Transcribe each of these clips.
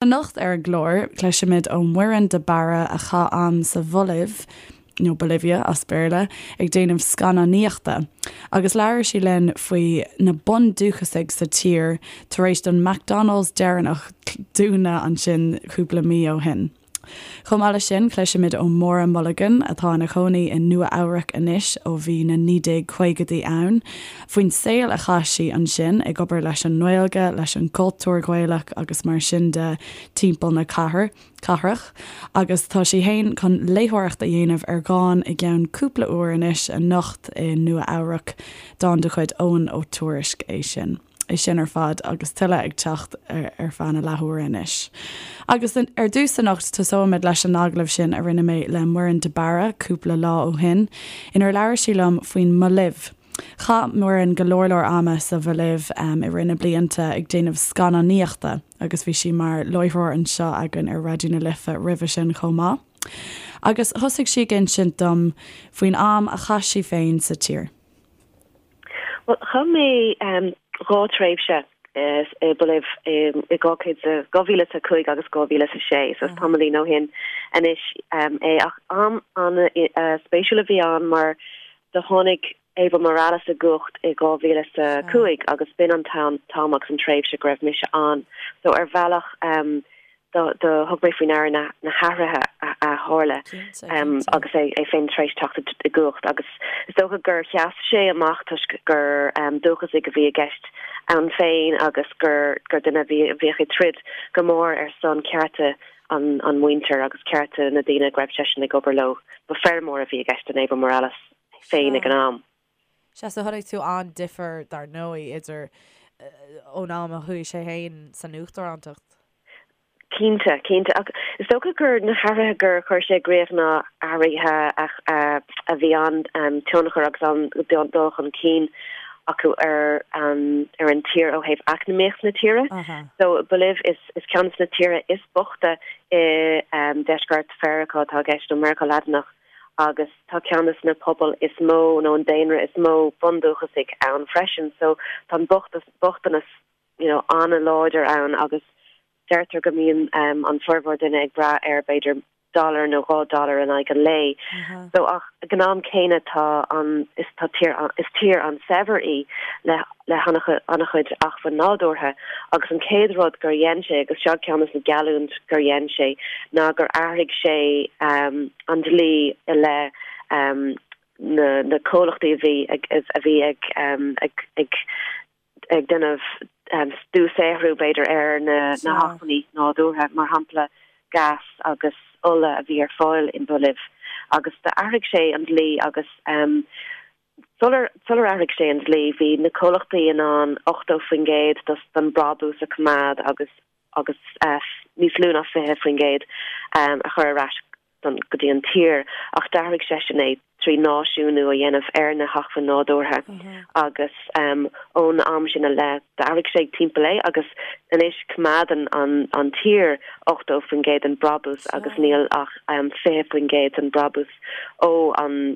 Anocht ar an gclár, cloisfimid ó Mhuireann de Barra a chaith am sa Bholaiv, nó Bolivia as Béarla, ag déanamh scannánaíochta, agus labhair sí linn faoi na bundúchasaigh sa tír tar éis don McDonald's deireanach dúnadh ansin cúpla mí ó shin. Chomh maith leis sin, cloisfimid ó Mháire Mulligan, atá ina cónaí i Nua Eabhrac anois ó bhí na 1950idí ann, faoin saol a chaith sí ansin, ag obair leis an nGaeilge, leis an gcultúr Gaelach agus mar sin de timpeall na cathrach. Agus tá sí fhéin chun léitheoireacht a dhéanamh ar dhán i gceann cúpla uair anois, anocht i Nua Eabhrac, dán de chuid Eoghan Ó Tuairisg é sin. É sin ar fad agus tuilleadh ag teacht ar feadh na leathuaire anois. Agus ar dtús anocht tosóimid leis an agallamh sin a rinne mé le Muireann de Barra cúpla lá ó shin, inar labhair sí liom faoin mBolaiv. Chaith Muireann go leor leor ama sa Bholaiv i rith na blianta ag déanamh scannánaíochta agus bhí sí mar láithreoir anseo againn ar Raidió na Life roimhe sin chomh maith. Agus thosaigh sí ag insint dom faoin am a chaith sí féin sa tír. Bhuel, chaith mé 2 tréimhse i Bolaiv i 2005 agus 2006, so is tamaillín ó shin anois é. Ach am an-spéisiúil a bhí ann mar do tháinig Evo Morales i gcumhacht i 2005 agus b'in an t-am agus an tréimhse go raibh mise ann. So ar bhealach do thug mé faoi ndeara na hathruithe a tharla agus é féin tar éis teacht i gcumhacht agus is dócha gur sheas sé amach toisc gur dúchasaigh a bhí i gceist ann féin agus gur duine a bhíodh ag troid go mór ar son cearta an mhuintir agus cearta na daoine go raibh seisean ag obair leo. Ba feirmeoir a bhí i gceist in Evo Morales féin ag an am. Sea, so chonaic tú an difear, dar ndóigh, idir ón am a chuaigh sé féin san uachtarántacht. Cinnte, cinnte. Ach is dócha gur na hathruithe gur chuir sé i gcrích ná athruithe a bhí an-tionchar agus an-dul chun cinn acu ar ar an tír ó thaobh eacnamaíocht na tíre. So Bolaiv is is ceann de na tíortha is boichte i deisceart Mheiriceá atá i gceist, nó Meiriceá Laidineach. agus tá ceann de na pobail is mó nó an daonra is mó bundúchasaigh ann freisin so tá an bochtanas you know an-láidir ann agus deirtear go mbíonn an formhór duine ag brath ar b'fhéidir dollar nó 2 dollar in aghaidh an lae. So ach ag an am céanna tá an is tá tír is tír an-saibhir í le le han-chuid acmhainn nádúrtha agus an chéad rud gur dhein sé, agus seo ceann de na geallúint gur dhein sé, ná gur athraigh sé an dlí i leith na comhlachtaí a bhí ag a bhí ag ag ag ag déanamh dúshaothrú b'fhéidir ar na na hacmhainní nádúrtha, mar shampla gás agus ola a bhí ar fáil in Bolaiv agus d'athraigh sé an dlí agus Sular athraigh sé an dlí, bhí na comhlachtaí in ann 80% den brabús a choimeád agus agus níos lú ná 20% a chur ar ais go dtí an tír, ach d'athraigh seisean é trí náisiúnú a dhéanamh ar na hacmhainn nádúrtha agus ón am sin i leith d'athraigh sé timpeall é agus anois coimeádann an tír 80% den brabús agus níl ach 20% den brabús ó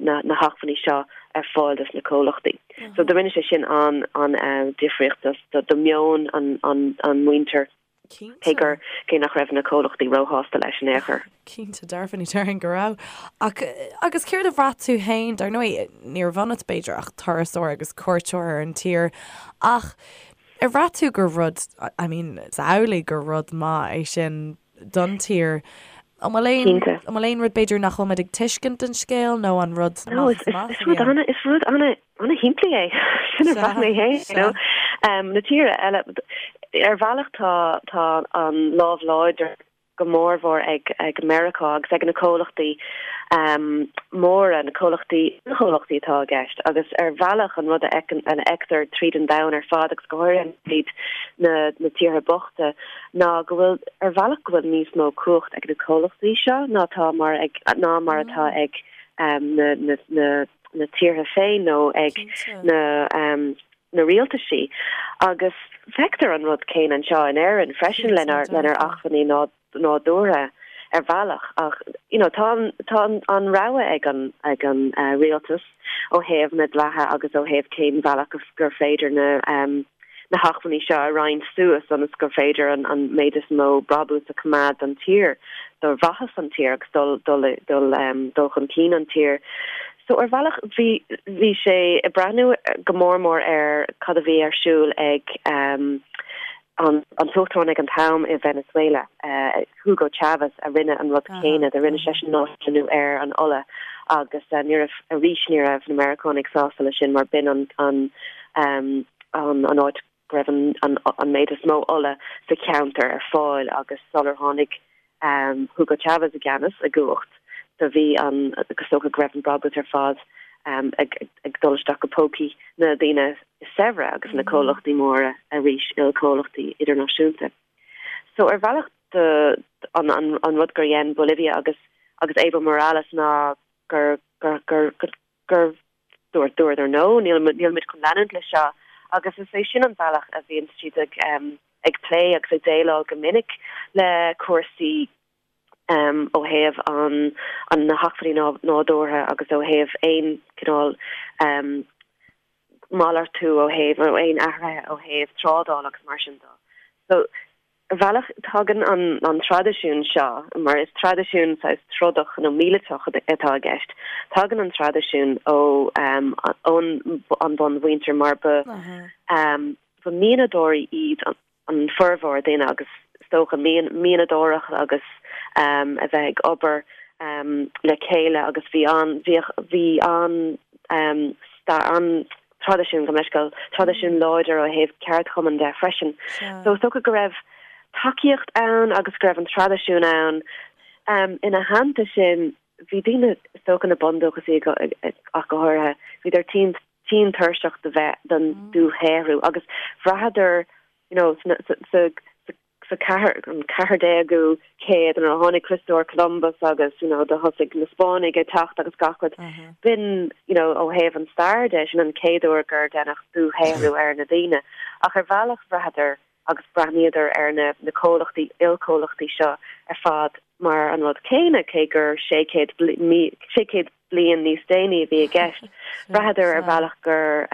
na hacmhainní seo ar fáil dos na comhlachtaí. So do rinne sé sin an an difríocht do do meon an an an muintir cé gur cé nach raibh na comhlachtaí róshásta leis in aon chor. Cinnte dearfa ní déarfainn go raibh. Ach agus céard a bhraith tú féin, dar ndóigh ní raibh ionat b'fhéidir ach turasóir agus cuairteoir ar an tír ach ar bhraith tú gur rud I mean is amhlaidh gur rud maith é sin don tír. An bhfuil aon, Cinnte. an bhfuil aon rud b'fhéidir nach bhfuil muid ag tuiscint den scéal nó an rud No, amach is, is amach is a rud bhí ann? ana, is rud ana, ana shimplí é. Sin a Sea, bhraith mé féin, you sea. know. Um, na tíortha eile, ar bhealach tá, tá an lámh láidir go mórmhór ag, ag Meiriceá agus ag na comhlachtaí um, móra, na comhlachtaí, na comhlachtaí atá i gceist agus ar bhealach an rud a fheiceann, a fheictear tríd an domhan ar fad agus go háirithe tríd na, na tíortha bochta, ná go bhfuil, ar bhealach, go bhfuil níos mó cumhacht ag na comhlachtaí seo ná tá mar ag, ná mar atá ag na, na, na, na tíortha féin nó ag na, na rialtaisí. Agus feictear an rud céanna anseo in Éirinn freisin lenár, lenár acmhainní nádúrtha ar bhealach ach, you know, tá an, tá an, an rogha ag an, ag an rialtas ó thaobh na dlíthe agus ó thaobh cén bhealach gur féidir na. na hacmhainní seo a roinnt suas ionas gur féidir an méid is mó brabús a choimeád don tír, do mhaitheas an tír agus dul dul dul dul chun cinn an tír. So ar bhealach bhí bhí sé ag breathnú go mór mór ar cad a bhí ar siúl ag an an t-uachtarán ag an t-am i Venezuela, Hugo Chavez, a rinne an rud céanna, do rinne seisean náisiúnú ar an ola agus ní raibh, arís ní raibh na Meiriceánaigh sásta leis sin mar b'in an an an áit go raibh an an méid is mó ola sa cheantar ar fáil agus sular tháinig Hugo Chavez i gceannas, i gcumhacht, do bhí an, is dócha go raibh an brabús ar fad ag ag dul isteach go pócaí na daoine is saibhre agus na comhlachtaí móra arís, ilchomhlachtaí idirnáisiúnta. So ar bhealach do an an an rud gur dhein Bolivia agus agus Evo Morales ná gur gur gur gur dúirt dúradar no, níl nílimid chun leanúint leis seo agus is é sin an bealach a bhíonn siad ag ag plé agus ag déileáil go minic le cúrsaí ó thaobh an an na hacmhainní nádúrtha agus ó thaobh aon cineál malartú ó thaobh nó aon athruithe ó thaobh trádáil agus mar sin de. So Ar bhealach, tagann an traidisiún seo, mar is traidisiún saghas trodach nó míleatach atá i gceist, tagann an traidisiún ó ón an bunmhuintir mar ba ba mianadóirí iad an formhór daoine agus is dócha mianadóireacht agus a bheith ag obair le chéile agus bhí an bhíodh bhí an an traidisiún, gabh mo leithscéal, traidisiún láidir ó thaobh ceardchumann de freisin. So is dócha go raibh tacaíocht ann agus go raibh an traidisiún ann. Ina theannta sin, bhí daoine, is dócha na bundúchasaigh ach go háirithe, bhíodar tinn tinn tuirseach de bheith den dúshaothrú agus bhraitheadar, you know, sa sa sa ceathair, an 14ú céad nuair a tháinig Criostóir Columbus agus you know do thosaigh na Spáinnigh ag teacht agus gach rud, b'in you know ó thaobh an stair de, sin an chéad uair gur deineadh dúshaothrú ar na daoine. Ach ar bhealach bhraitheadar agus breathnaíodar ar na na comhlachtaí, ilchomhlachtaí seo ar fad mar an rud céanna, cé gur 600 600 bliain níos déanaí a bhí i gceist. Bhraitheadar ar bhealach gur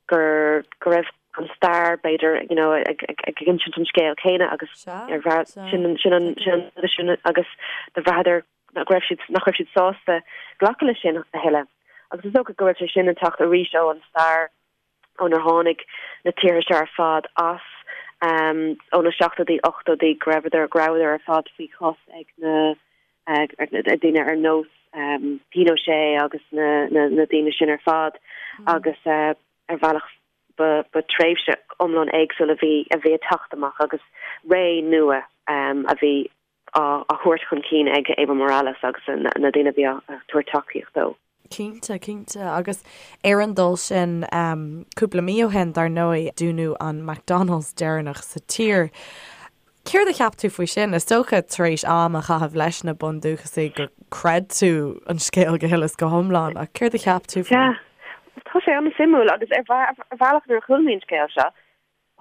gur go raibh an stair b'fhéidir you know ag ag ag insint an scéal céanna agus ar bhraith sin an sin an sin an sin agus do bhraitheadar nach raibh siad nach raibh siad sásta glacadh leis sin a thuilleadh. Agus is dócha go raibh sé sin ag teacht arís ó an stair ónar tháinig na tíortha seo ar fad as ó na seachtóidí, ochtóidí, go raibheadar, go rabhadar ar fad faoi chos ag na daoine ar nós Pinochet agus na daoine sin ar fad agus ar bhealach ba tréimhse iomlán éagsúil a bhí a bhí ag teacht amach agus ré nua a bhí á thabhairt chun cinn ag Evo Morales agus na daoine a bhí á tabhairt tacaíocht dó. Cinnte, cinnte. Agus ar an dul sin, cúpla mí ó shin, dar ndóigh, dúnadh an McDonald's deireanach sa tír. Céard a cheap tú faoi sin? Is dócha, tar éis am a chaitheamh leis na bundúchasaigh, gur chreid tú an scéal go huile is go hiomlán, ach céard a cheap tú faoi? Sea. Tá sé an-suimiúil agus ar bhealach nuair a chuala mé an scéal seo,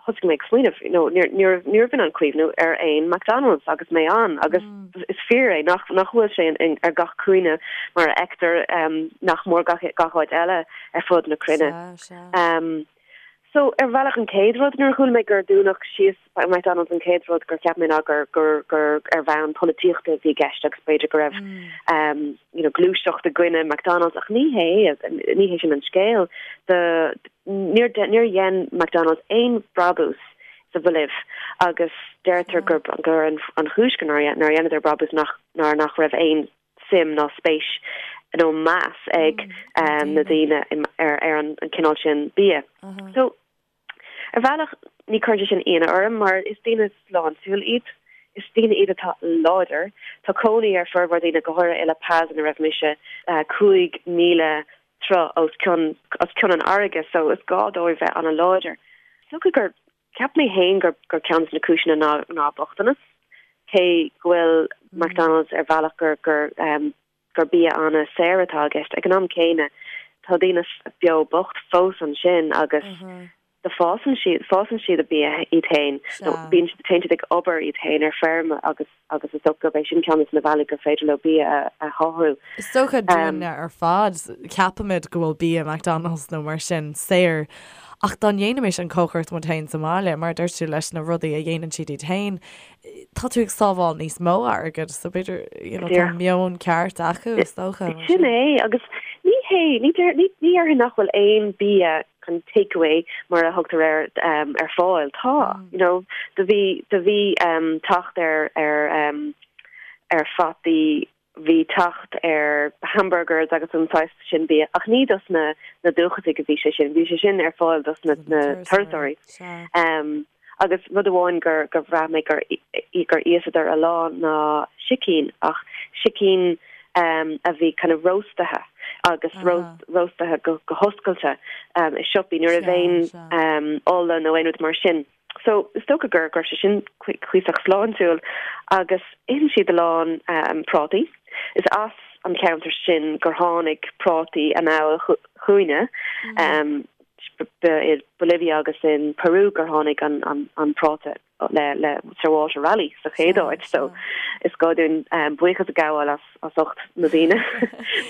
thosaigh mé ag smaoineamh, you know, ní raibh ní raibh in ann cuimhniú ar aon McDonald's agus mé ann agus is fíor é nach nach bhfuil sé in ar gach cúinne mar a fheictear nach mór gach gach áit eile ar fud na cruinne. So ar bhealach an chéad rud nuair a chuala mé gur dúnadh síos McDonald's an chéad rud gur cheap mé ná gur gur gur ar bhonn polaitíochta a bhí i gceist agus b'fhéidir go raibh you know gluaiseacht i gcoinne McDonald's ach ní hé ní hé sin an scéal. Do Níor níor dhein McDonald's aon brabús sa Bholaiv agus deirtear gur gur an an chúis go nár nár dheineadar brabús nach ná nach raibh aon suim ná spéis nó meas ag na daoine ar ar an cineál sin bia. So ar bhealach ní chuireann sé sin ionadh orm mar is daoine sláintiúil iad. Is daoine iad atá láidir. Tá cónaí ar formhór daoine, go háirithe i La Paz ina raibh mise, 5,000 troigh os cionn os cionn an fharraige so is gá dóibh bheith an-láidir. Is dócha gur, cheap mé féin gur gur ceann de na cúiseanna ná ná bochtanas, cé go bhfuil McDonald's ar bhealach gur gur gur bia an-saor atá i gceist. Ag an am céanna tá daoine beo bocht fós ansin agus do fásann siad, fásann siad a bia iad féin, nó bíonn siad, téann siad ag obair iad féin ar feirm agus agus is dócha gurb é sin ceann de na bealaí gur féidir leo bia a a shaothrú. Is dócha dúinne ar fad, ceapaimid go bhfuil bia McDonald's nó mar sin saor. Ach dá ndéanfaimis an chócaireacht muid féin sa mbaile, mar a dúirt tú, leis na rudaí a dhéanann siad iad féin, tá tú ag sábháil níos mó airgid, so b'fhéidir, you know, tá meon ceart acu, is dócha. Sin é, agus ní hé, ní déarfainn nach bhfuil aon bia an take away mar a thugtar air ar fáil. Tá, you know, do bhí, do bhí teacht ar, ar, ar fataí, bhí teacht ar hamburgers agus an saghas sin bia, ach ní dos na, na dúchasaigh a bhí sé sin, bhí sé sin ar fáil dos na, na turasóirí. Agus rud amháin gur, gur bhraith mé gur, gur íosadar a lán ná sicín, ach sicín a bhí kind of róstaithe agus róstaithe go hoscailte i siopaí, ní raibh aon ola nó aon rud mar sin. So is dócha gur go raibh sé sin cuíosach sláintiúil agus itheann siad a lán prátaí. Is as an cheantar sin gur tháinig prátaí anall chugainne. Ba i Bolivia agus in Peru gur tháinig an práta le le Sir Walter Raleigh sa chéad áit so is gá dúinn buíochas a ghabháil as as ucht na daoine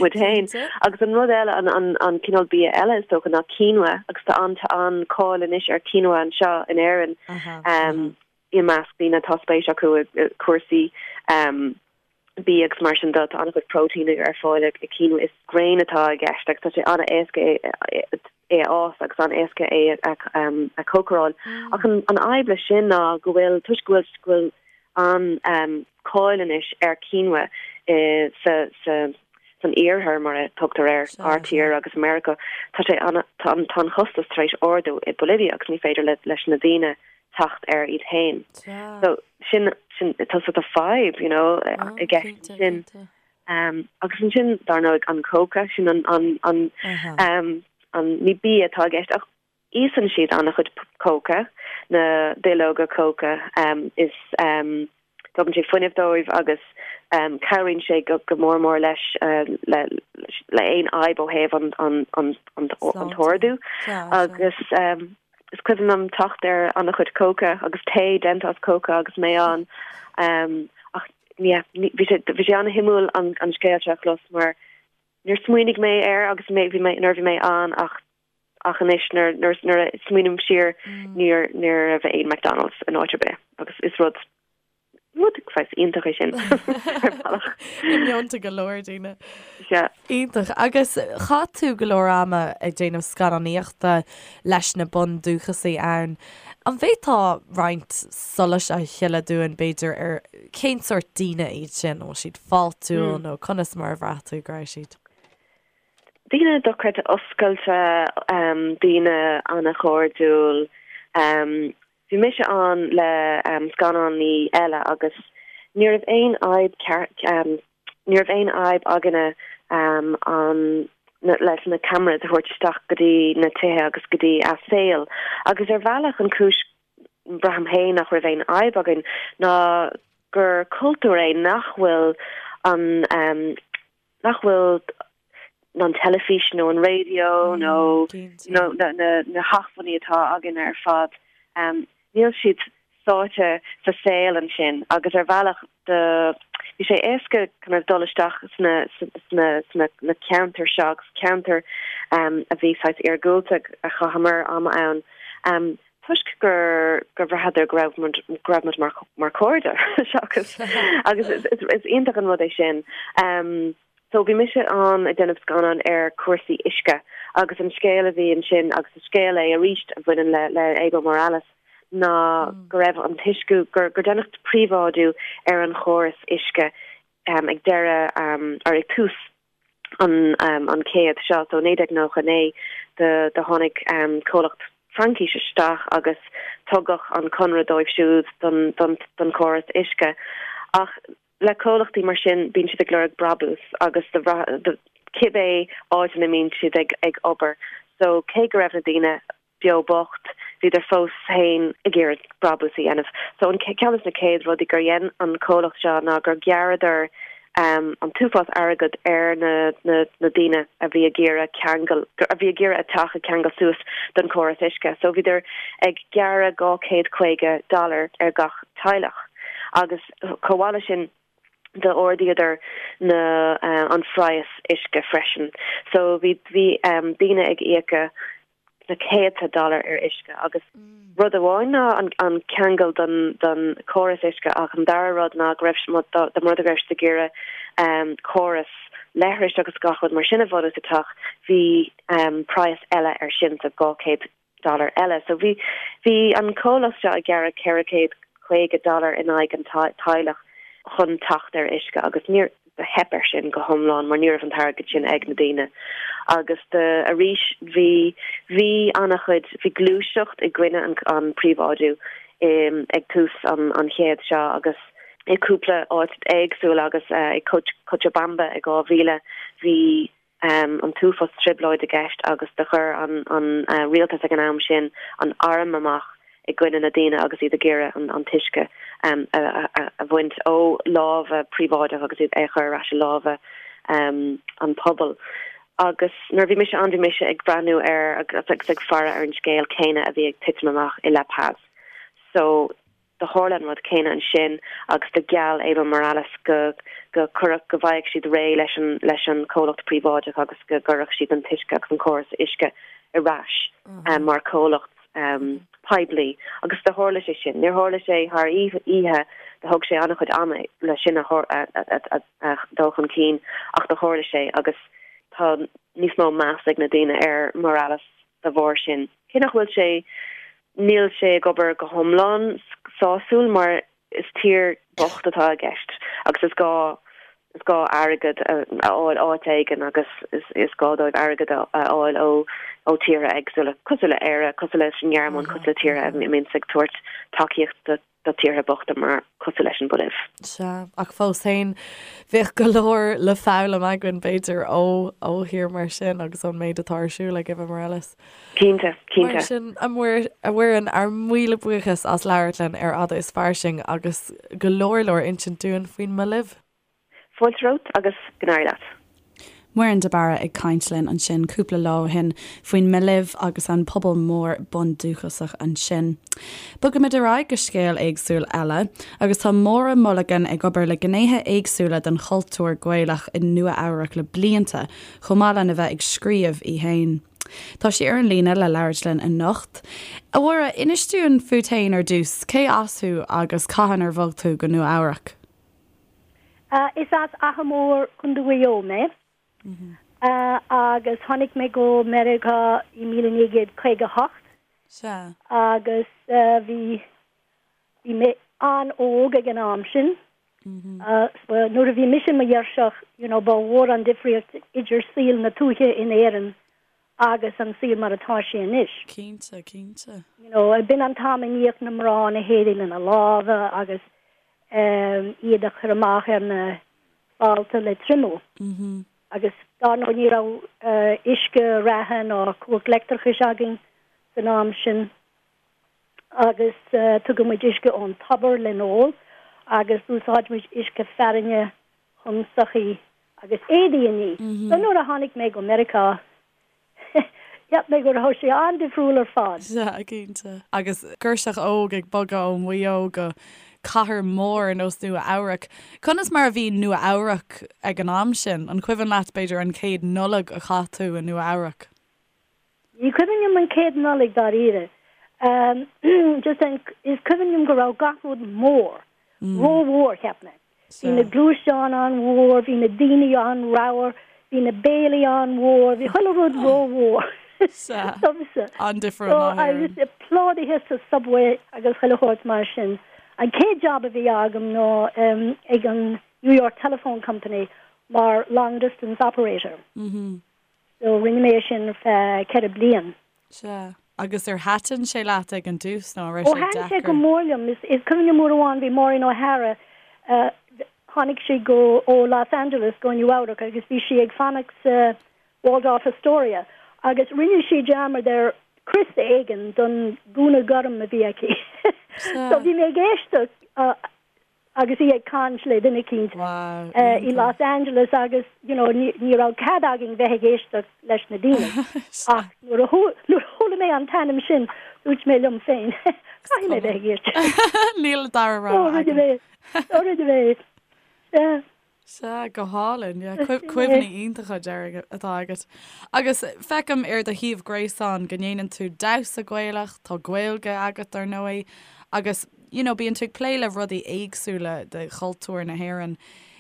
muid féin. Agus an rud eile an an an cineál bia eile is dócha ná quinoa agus tá an tá an-cáil anois ar quinoa anseo in Éirinn i measc daoine atá spéis acu i cúrsaí bia agus mar sin de, tá an-chuid próitéin ar fáil i quinoa. Is grain atá i gceist agus tá sé an-éasca é a fhás agus an-éasca é a chócaráil. Ach an fhadhb leis sin ná go bhfuil, toisc go bhfuil go bhfuil an-cáil anois ar quinoa sa sa san iarthar mar a tugtar air, ár tír agus Meiriceá, tá sé an tá an costas tar éis ardú i Bolivia agus ní féidir leis na daoine teacht air iad féin. So sin sin tá sort of fadhb, you know, i gceist sin. Um, agus ansin dar ndóigh an cóca sin an an an um, an ní bia atá i gceist ach íosann siad an-chuid cóca na duilleoga cóca um, is um, tugann sé fuinneamh dóibh agus um, cabhraíonn sé go, go mór mór leis uh, le, le aon fhadhb ó thaobh an, an, an, an, an t-ardú agus um, Is cuimhin liom teacht ar an-chuid cóca agus tae déanta as cóca agus mé ann. Ach yeah, bhí sé bhí sé an-shuimiúil an an scéal seo a chlos mar níor smaoinigh mé air agus mé bhí mé nuair a bhí mé ann ach ach anois nuair nuair nuair a smaoiním siar níor ní raibh aon McDonald's in áit ar bith agus is rud Rud saghas iontach é sin ar bhealach. I meonta go leor daoine. Sea. Iontach. Agus chaith tú go leor ama ag déanamh scannánaíochta leis na bundúchasaigh ann. An bhféadfá roinnt solais a shileadh dúinn, b'fhéidir, ar cén sórt daoine iad sin? An bhfuil siad fáiltiúil nó conas mar a bhraith tú go raibh siad? Daoine dochreidte oscailte, daoine an-chairdiúil. Bhí mise ann le scannánaí eile agus ní raibh aon fhadhb ní raibh aon fhadhb againne an leis na cameras a thabhairt isteach go dtí na tithe agus go dtí a saol. Agus ar bhealach an chúis braithim féin nach raibh aon fhadhb againn ná gur cultúr é nach bhfuil an nach bhfuil an teilifís nó an raidió nó na hacmhainní atá againn ar fad, níl siad sáite sa saol ansin agus ar bhealach do bhí sé éasca kind of dul isteach sna sna sna na ceantair seo agus ceantair a bhí saghas iargúlta a chaitheamar am ann. Toisc gur gur bhraitheadar go raibh muid go raibh muid mar mar chairde seachas agus is is is iontach an rud é sin. Um, so bhí mise ann ag déanamh scannán ar cúrsaí uisce agus an scéal a bhí ansin agus is scéal é arís a bhaineann le le Evo Morales ná go raibh an t-uisce gur gur deineadh príobháidiú ar an chóras uisce um, ag deireadh um, or ag tús an an chéad seo, so 1999 do do tháinig comhlacht Fraincis isteach agus tugadh an conradh dóibh siúd don don don chóras uisce. Ach le comhlachtaí mar sin bíonn siad ag lorg brabús agus do do cibé áit ina mbíonn siad ag ag obair. So cé go raibh na daoine beo bocht, bhíodar fós féin ag iarraidh brabús a dhéanamh. So an ceann de na céad rudaí gur dhein an comhlacht seo ná gur ghearradar an t-uafás airgead ar na na na daoine a bhí ag iarraidh ceangal, a bhí ag iarraidh a teach a cheangal suas don chóras uisce. So bhíodar ag gearradh 250 dollar ar gach teaghlach agus chomh maith leis sin d'ardaíodar na an phraghas uisce freisin. So bhí bhí daoine ag íoca. Na céadta dollar ar uisce agus rud amháin ná an ceangal don don córas uisce ach an dara rud ná go raibh dá mba rud é go raibh siad ag iarraidh córas leithris agus gach rud mar sin a bhunú sa teach bhí praghas eile ar sin so 200 dollar eile. So bhí bhí an comhlacht seo ag gearradh 450 dollar in aghaidh an teaghlach chun teacht ar uisce agus níor do theip air sin go hiomlán mar ní raibh an t-airgead sin ag na daoine agus do arís bhí bhí an-chuid bhí gluaiseacht i gcoinne an an príobháidiú ag tús an an chéad seo agus i cúpla áit éagsúil agus i Cochabamba i 2000 bhí an t-uafás trioblóid i gceist agus do chuir an an rialtas ag an am sin an arm amach i gcoinne na daoine agus iad ag iarraidh an an t-uisce a bhaint ó lámha príobháideach agus iad é a chur ar ais i lámha an pobail. Agus nuair a bhí mise ann bhí mise ag breathnú ar agus ag faire ar an scéal céanna a bhí ag titim amach i La Paz. So Do tharla an rud céanna ansin agus do gheall Evo Morales go go cuirfeadh, go bhfaigheadh siad réidh leis an leis an comhlacht príobháideach agus go gcuirfeadh siad an t-uisce agus an córas uisce ar ais mar chomhlacht poiblí. Agus do tharla sé sin. Níor tharla sé thar oíche, do thóg sé an-chuid ama le sin a a dul chun cinn ach do tharla sé agus tá níos mó meas ag na daoine ar Morales dá bharr sin. Cé nach bhfuil sé, níl sé ag obair go hiomlán sásúil mar is tír bocht atá i gceist agus is gá is gá airgead a fháil áit éigin agus is is gá dóibh airgead a fháil ó ó tíortha éagsúla, cosúil le Éire, cosúil leis an nGearmáin, cosúil le tíortha a mbíonns ag tabhairt tacaíocht do do tíortha bochta mar cosúil leis an Bholaiv. Sea, ach fós féin, bheadh go leor le foghlaim againn, b'fhéidir, ó ó thír mar sin agus ón méid atá ar siúl ag Evo Morales. Cinnte, cinnte. Mar sin, a Mhuireann, ár míle buíochas as labhairt linn ar Fhada is Fairsing agus go leor leor insint dúinn faoin mBolaiv. Fáilte romhat agus go n-éirí leat. Muireann de Barra ag caint linn ansin cúpla lá ó shin faoin mBolaiv agus an pobal mór bundúchasach ansin. Bogaimid ar aghaidh go scéal éagsúil eile agus tá Máire Mulligan ag obair le gnéithe éagsúla den chultúr Gaelach i Nua Eabhrac le blianta, chomh maith lena bheith ag scríobh í féin. Tá sí ar an líne le labhairt linn anocht. A Mháire, inis dúinn fút féin ar dtús, cé as thú agus cathain ar bhog tú go Nua Eabhrac? Is as Achadh Mór, Contae Mhaigh Eo mé agus tháinig mé go Meiriceá i 1958 Sea. agus bhí bhí mé an-óg ag an am sin. Nuair a bhí mise i mo ghirseach, you know, ba mhór an difríocht idir saol na tuaithe in Éirinn agus an saol mar atá sé anois. Cinnte, cinnte. You know, b'in an t-am a níodh na mná na héadaí lena lámha agus iad a chur amach ar na fálta le triomú. Agus dar ndóigh ní raibh uisce reatha ná cumhacht leictreachais againn san am sin agus tugadh muid uisce ón tobar le n-ól agus d'úsáid muid uisce fearthainne chun soithí agus éadaí a ní. So nuair a tháinig mé go Meiriceá, cheap mé go raibh sé an-difriúil ar fad. Sea, cinnte. Agus girseach óg ag bogadh ó Mhaigh Eo go cathair mhór ar nós Nua Eabhrac. Conas mar a bhí Nua Eabhrac ag an am sin? An cuimhin leat, b'fhéidir, an chéad Nollaig a chaith tú i Nua Eabhrac? Ní cuimhin liom an chéad Nollaig dáiríre. Just an, is cuimhin liom go raibh gach rud mór, rómhór, cheap mé. Bhí na gluaisteáin an-mhór, bhí na daoine an-ramhar, bhí na béilí an-mhór, bhí chuile rud rómhór domsa. An-difriúil ná hÉirinn. So, agus plódaithe sa subway agus chuile shórt mar sin. An chéad job a bhí agam ná ag an New York Telephone Company mar long distance operator. So rinne mé é sin ar feadh 4 bliain. Sea. Agus ar thaitin sé leat ag an dtús nó an raibh sé deacair? Ó thaitin sé go mór liom. Is cuimhin liom uair amháin bhí Maureen O'Hara, tháinig sí go, ó Los Angeles go Nua Eabhrac agus bhí sí ag fanacht sa Waldorf Astoria agus rinne sí dearmad ar crios éigin don gúna gorm a bhí aici. So bhí mé ag éisteacht agus í ag caint le duine eicínt i Los Angeles agus you know ní raibh cead againn bheith ag éisteacht leis na daoine ach nuair a chuala mé an t-ainm sin dúirt mé liom féin caithfidh mé bheith ag éisteacht. Níl dara rogha agam. So rinne mé. Sea, go hálainn. Yeah, cuimhní iontacha déarfainn atá agat. Agus feicim ar do shuíomh gréasáin go ndéanann tú damhsa Gaelach, tá Gaeilge agat ar ndóigh, agus you know, bíonn tú ag plé le rudaí éagsúla de chultúr na hÉireann.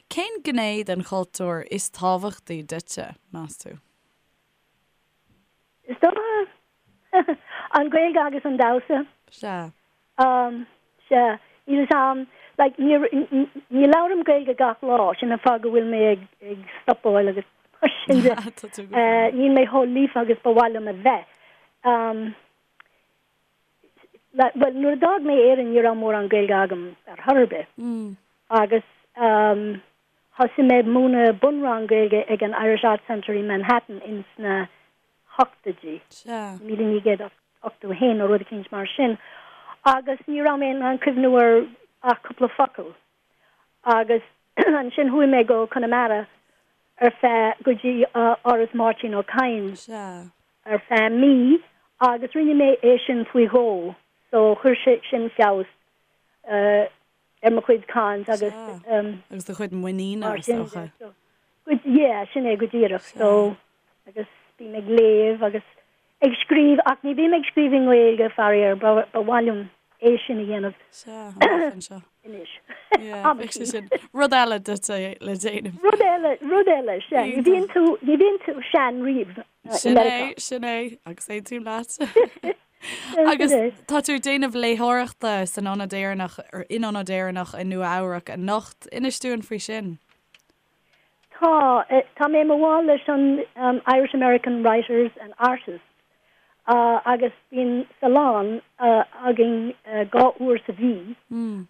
Cén gné den chultúr is tábhachtaí duitse, meas tú? Is dócha an Ghaeilge agus an damhsa. Sea. Sea. Níl fhios a'm, like, ní, ní labhraím Gaeilge gach lá, sin an fáth go bhfuil mé ag, ag stopáil agus mar sin de. Tá tú go breá. Níl mé chomh líofa agus ba mhaith liom a bheith. Like, bhuel, nuair a d'fhág mé Éirinn ní raibh mórán Gaeilge agam ar chor ar bith. Agus thosaigh mé ag múineadh bunrang Gaeilge ag an Irish Arts Centre i Manhattan ins na hochtóidí, Sea. 1981 nó rud eicínt mar sin, agus ní raibh mé in ann cuimhniú ar ach cúpla focal. Agus ansin chuaigh mé go Conamara ar feadh, go dtí Áras Máirtín Ó Cadhain Sea. ar feadh mí agus rinne mé é sin faoi dhó, so chuir sé sin feabhas ar mo chuid caint agus. Sea. Agus do chuid muiníne, is dócha. Yeah, sin é go díreach. So, agus bím ag léamh agus ag scríobh, ach ní bhím ag scríobh i nGaeilge, faraor, ba mhaith liom é sin a dhéanamh. Sea, amach anseo. Anois. Yeah, bheadh sé sin. Rud eile duit le déanamh. Rud eile, rud eile, sea. Ní bhíonn tú, ní bhíonn tú sean riamh i Sin é, sin é, agus aontaím leat. Agus tá tú ag déanamh léitheoireachta san Ionad Éireannach, in Ionad Éireannach i Nua Eabhrac anocht. Inis dúinn faoi sin. Tá. Tá mé i mo bhall leis an Irish American Writers and Artists agus bíonn salon againn 2 uair sa mhí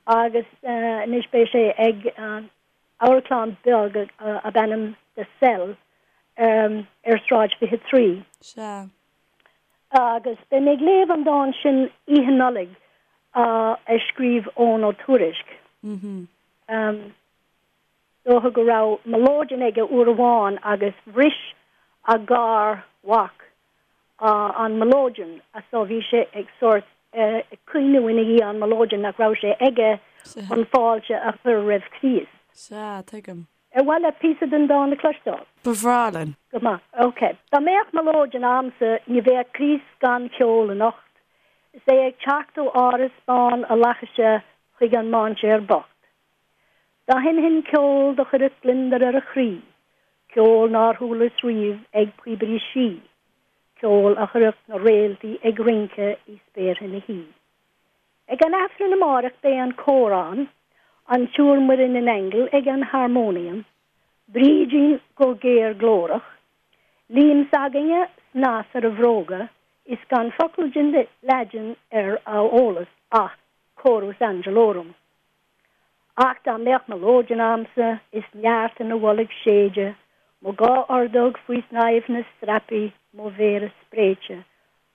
agus anois beidh sé ag amharclann beag ab ainm The Cell ar Sráid 23. Sea. Agus beidh mé ag léamh an dán sin Oíche Nollag a scríobh Eoghan Ó Tuairisg. Dócha go raibh mileoidean aige uair amháin agus bhris a gar-mhac an mileoidean so bhí sé ag sórt ag caoineadh ina dhiaidh an mileoidean nach raibh sé aige chun fáilte a chur roimh Chríost. Sea, tuigim. Ar mhaith leat píosa den dán a chloisteáil? Ba bhreá linn. Go maith. Ok. Dá mbeadh mileoidean a'msa ní bheadh Críost gan cheol anocht is é ag teacht ó áras bán a fhlaithise chuig an mainséar bocht. Dá sheinnfinn ceol do chuirfeadh gliondar ar a chroí, ceol nár chualas riamh ag píobairí sí, ceol a chuirfeadh na réaltaí ag rince i spéartha na hoíche. Ag an Aifreann amáireach beidh an cór ann, an tSiúr Muireann in Aingeal ag an harmónium, Brídín go géar glórach, Liam s'againne snas ar a bhróga is gan focal den Laidin ar a eolas ach Chorus Angelorum. Ach dá mbeadh mileoidean a'msa is neart ina bholg séide, mo dhá ordóg faoi shnaidhmh na strapaí, mo mhéara spréite,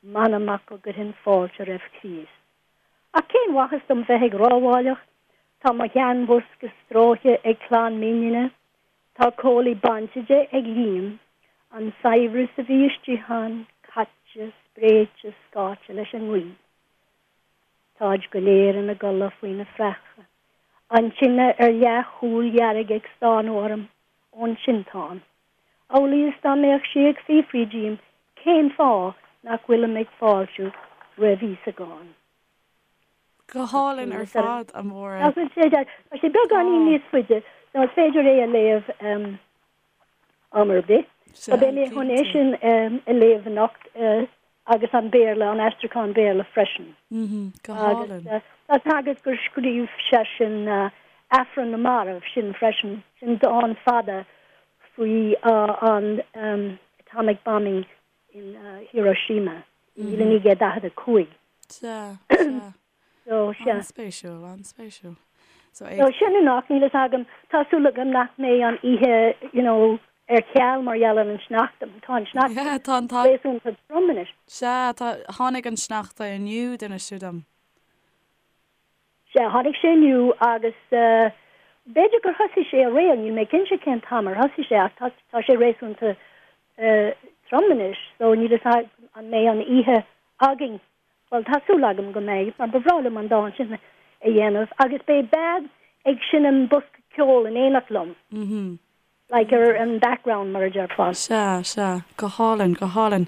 m'anam ach go gcuirfinn fáilte roimh Chríost. Ach cén mhaitheas dom bheith ag rámhaíocht, tá mo sheanbhosca stróicthe ag clann m'iníne, tá comhlaí bainte de ag Liam, an saibhreas a bhí istigh ann caite, spréite, scáite leis an ngaoth. Táid go léir ina gcodladh faoina phreachadh, an tine ar leathshúil dhearg ag stánadh orm ón tinteán, amhlaidh is dá mbeadh sí ag fiafraí díom cén fáth nach bhfuilim ag fáiltiú roimh Íosagán. Go hálainn ar fad, a Mháire. Tá sé beagáinín níos faide, so is féidir é a léamh am ar bith. So beidh mé chun é sin a léamh anocht agus an Béarla, an aistriúchán Béarla freisin. Go hálainn. Agus tá 's agat gur scríobh seisean Aifreann na Marbh sin freisin, sin dán fada faoi an atomic bombing in Hiroshima i 1945. Sea, sea. So, sea. An-spéisiúil, an-spéisiúil. So, ag. So, sin anocht, níl fhios agam, tá súil agam nach mbeidh an oíche, you know, ar ceal mar gheall ar an sneachta. Tá an sneachta Yeah, tá an t-. réasúnta trom anois. Sea, tá, tháinig an sneachta inniu, d'inis tú dom. Sea, tháinig sé inniu agus eh, b'fhéidir gur thosaigh sé aréir, níl mé cinnte cén t-am ar thosaigh sé ach tá, tá sé réasúnta eh, trom anois, so níl fhios agam an mbeidh an oíche againn. Bhuel, tá súil agam go mbeidh, mar ba bhreá liom an dán sin a dhéanamh. Agus beidh bean ag seinm bosca. Ceol in éineacht liom. Like ar an background mar a déarfá. Sea, sea. Go hálainn, go hálainn.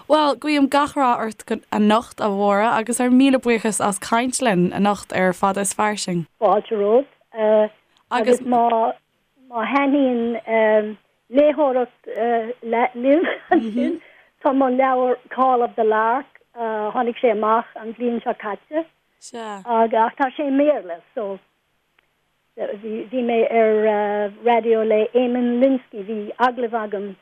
Bhuel, guím gach rath ort anocht, a Mháire, agus ár míle buíochas as caint linn anocht ar Fada is Fairsing. Fáilte romhat. Agus má má thaitníonn léitheoireacht libh ansin, tá mo leabhar Call of the Lark, tháinig sé amach an bhliain seo caite. Sea. Ach tá sé i mBéarla, so Bhí mé ar raidió le Eamon Lynskey, bhí agallamh agam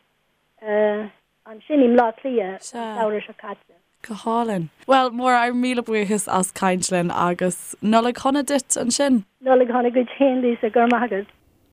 ansin i mBleá Cliath an samhradh seo caite. Go hálainn. Bhuel, Máire, ár míle buíochas as caint linn agus Nollaig shona duit ansin. Nollaig shona duit féin, Lisa, go raibh maith agat.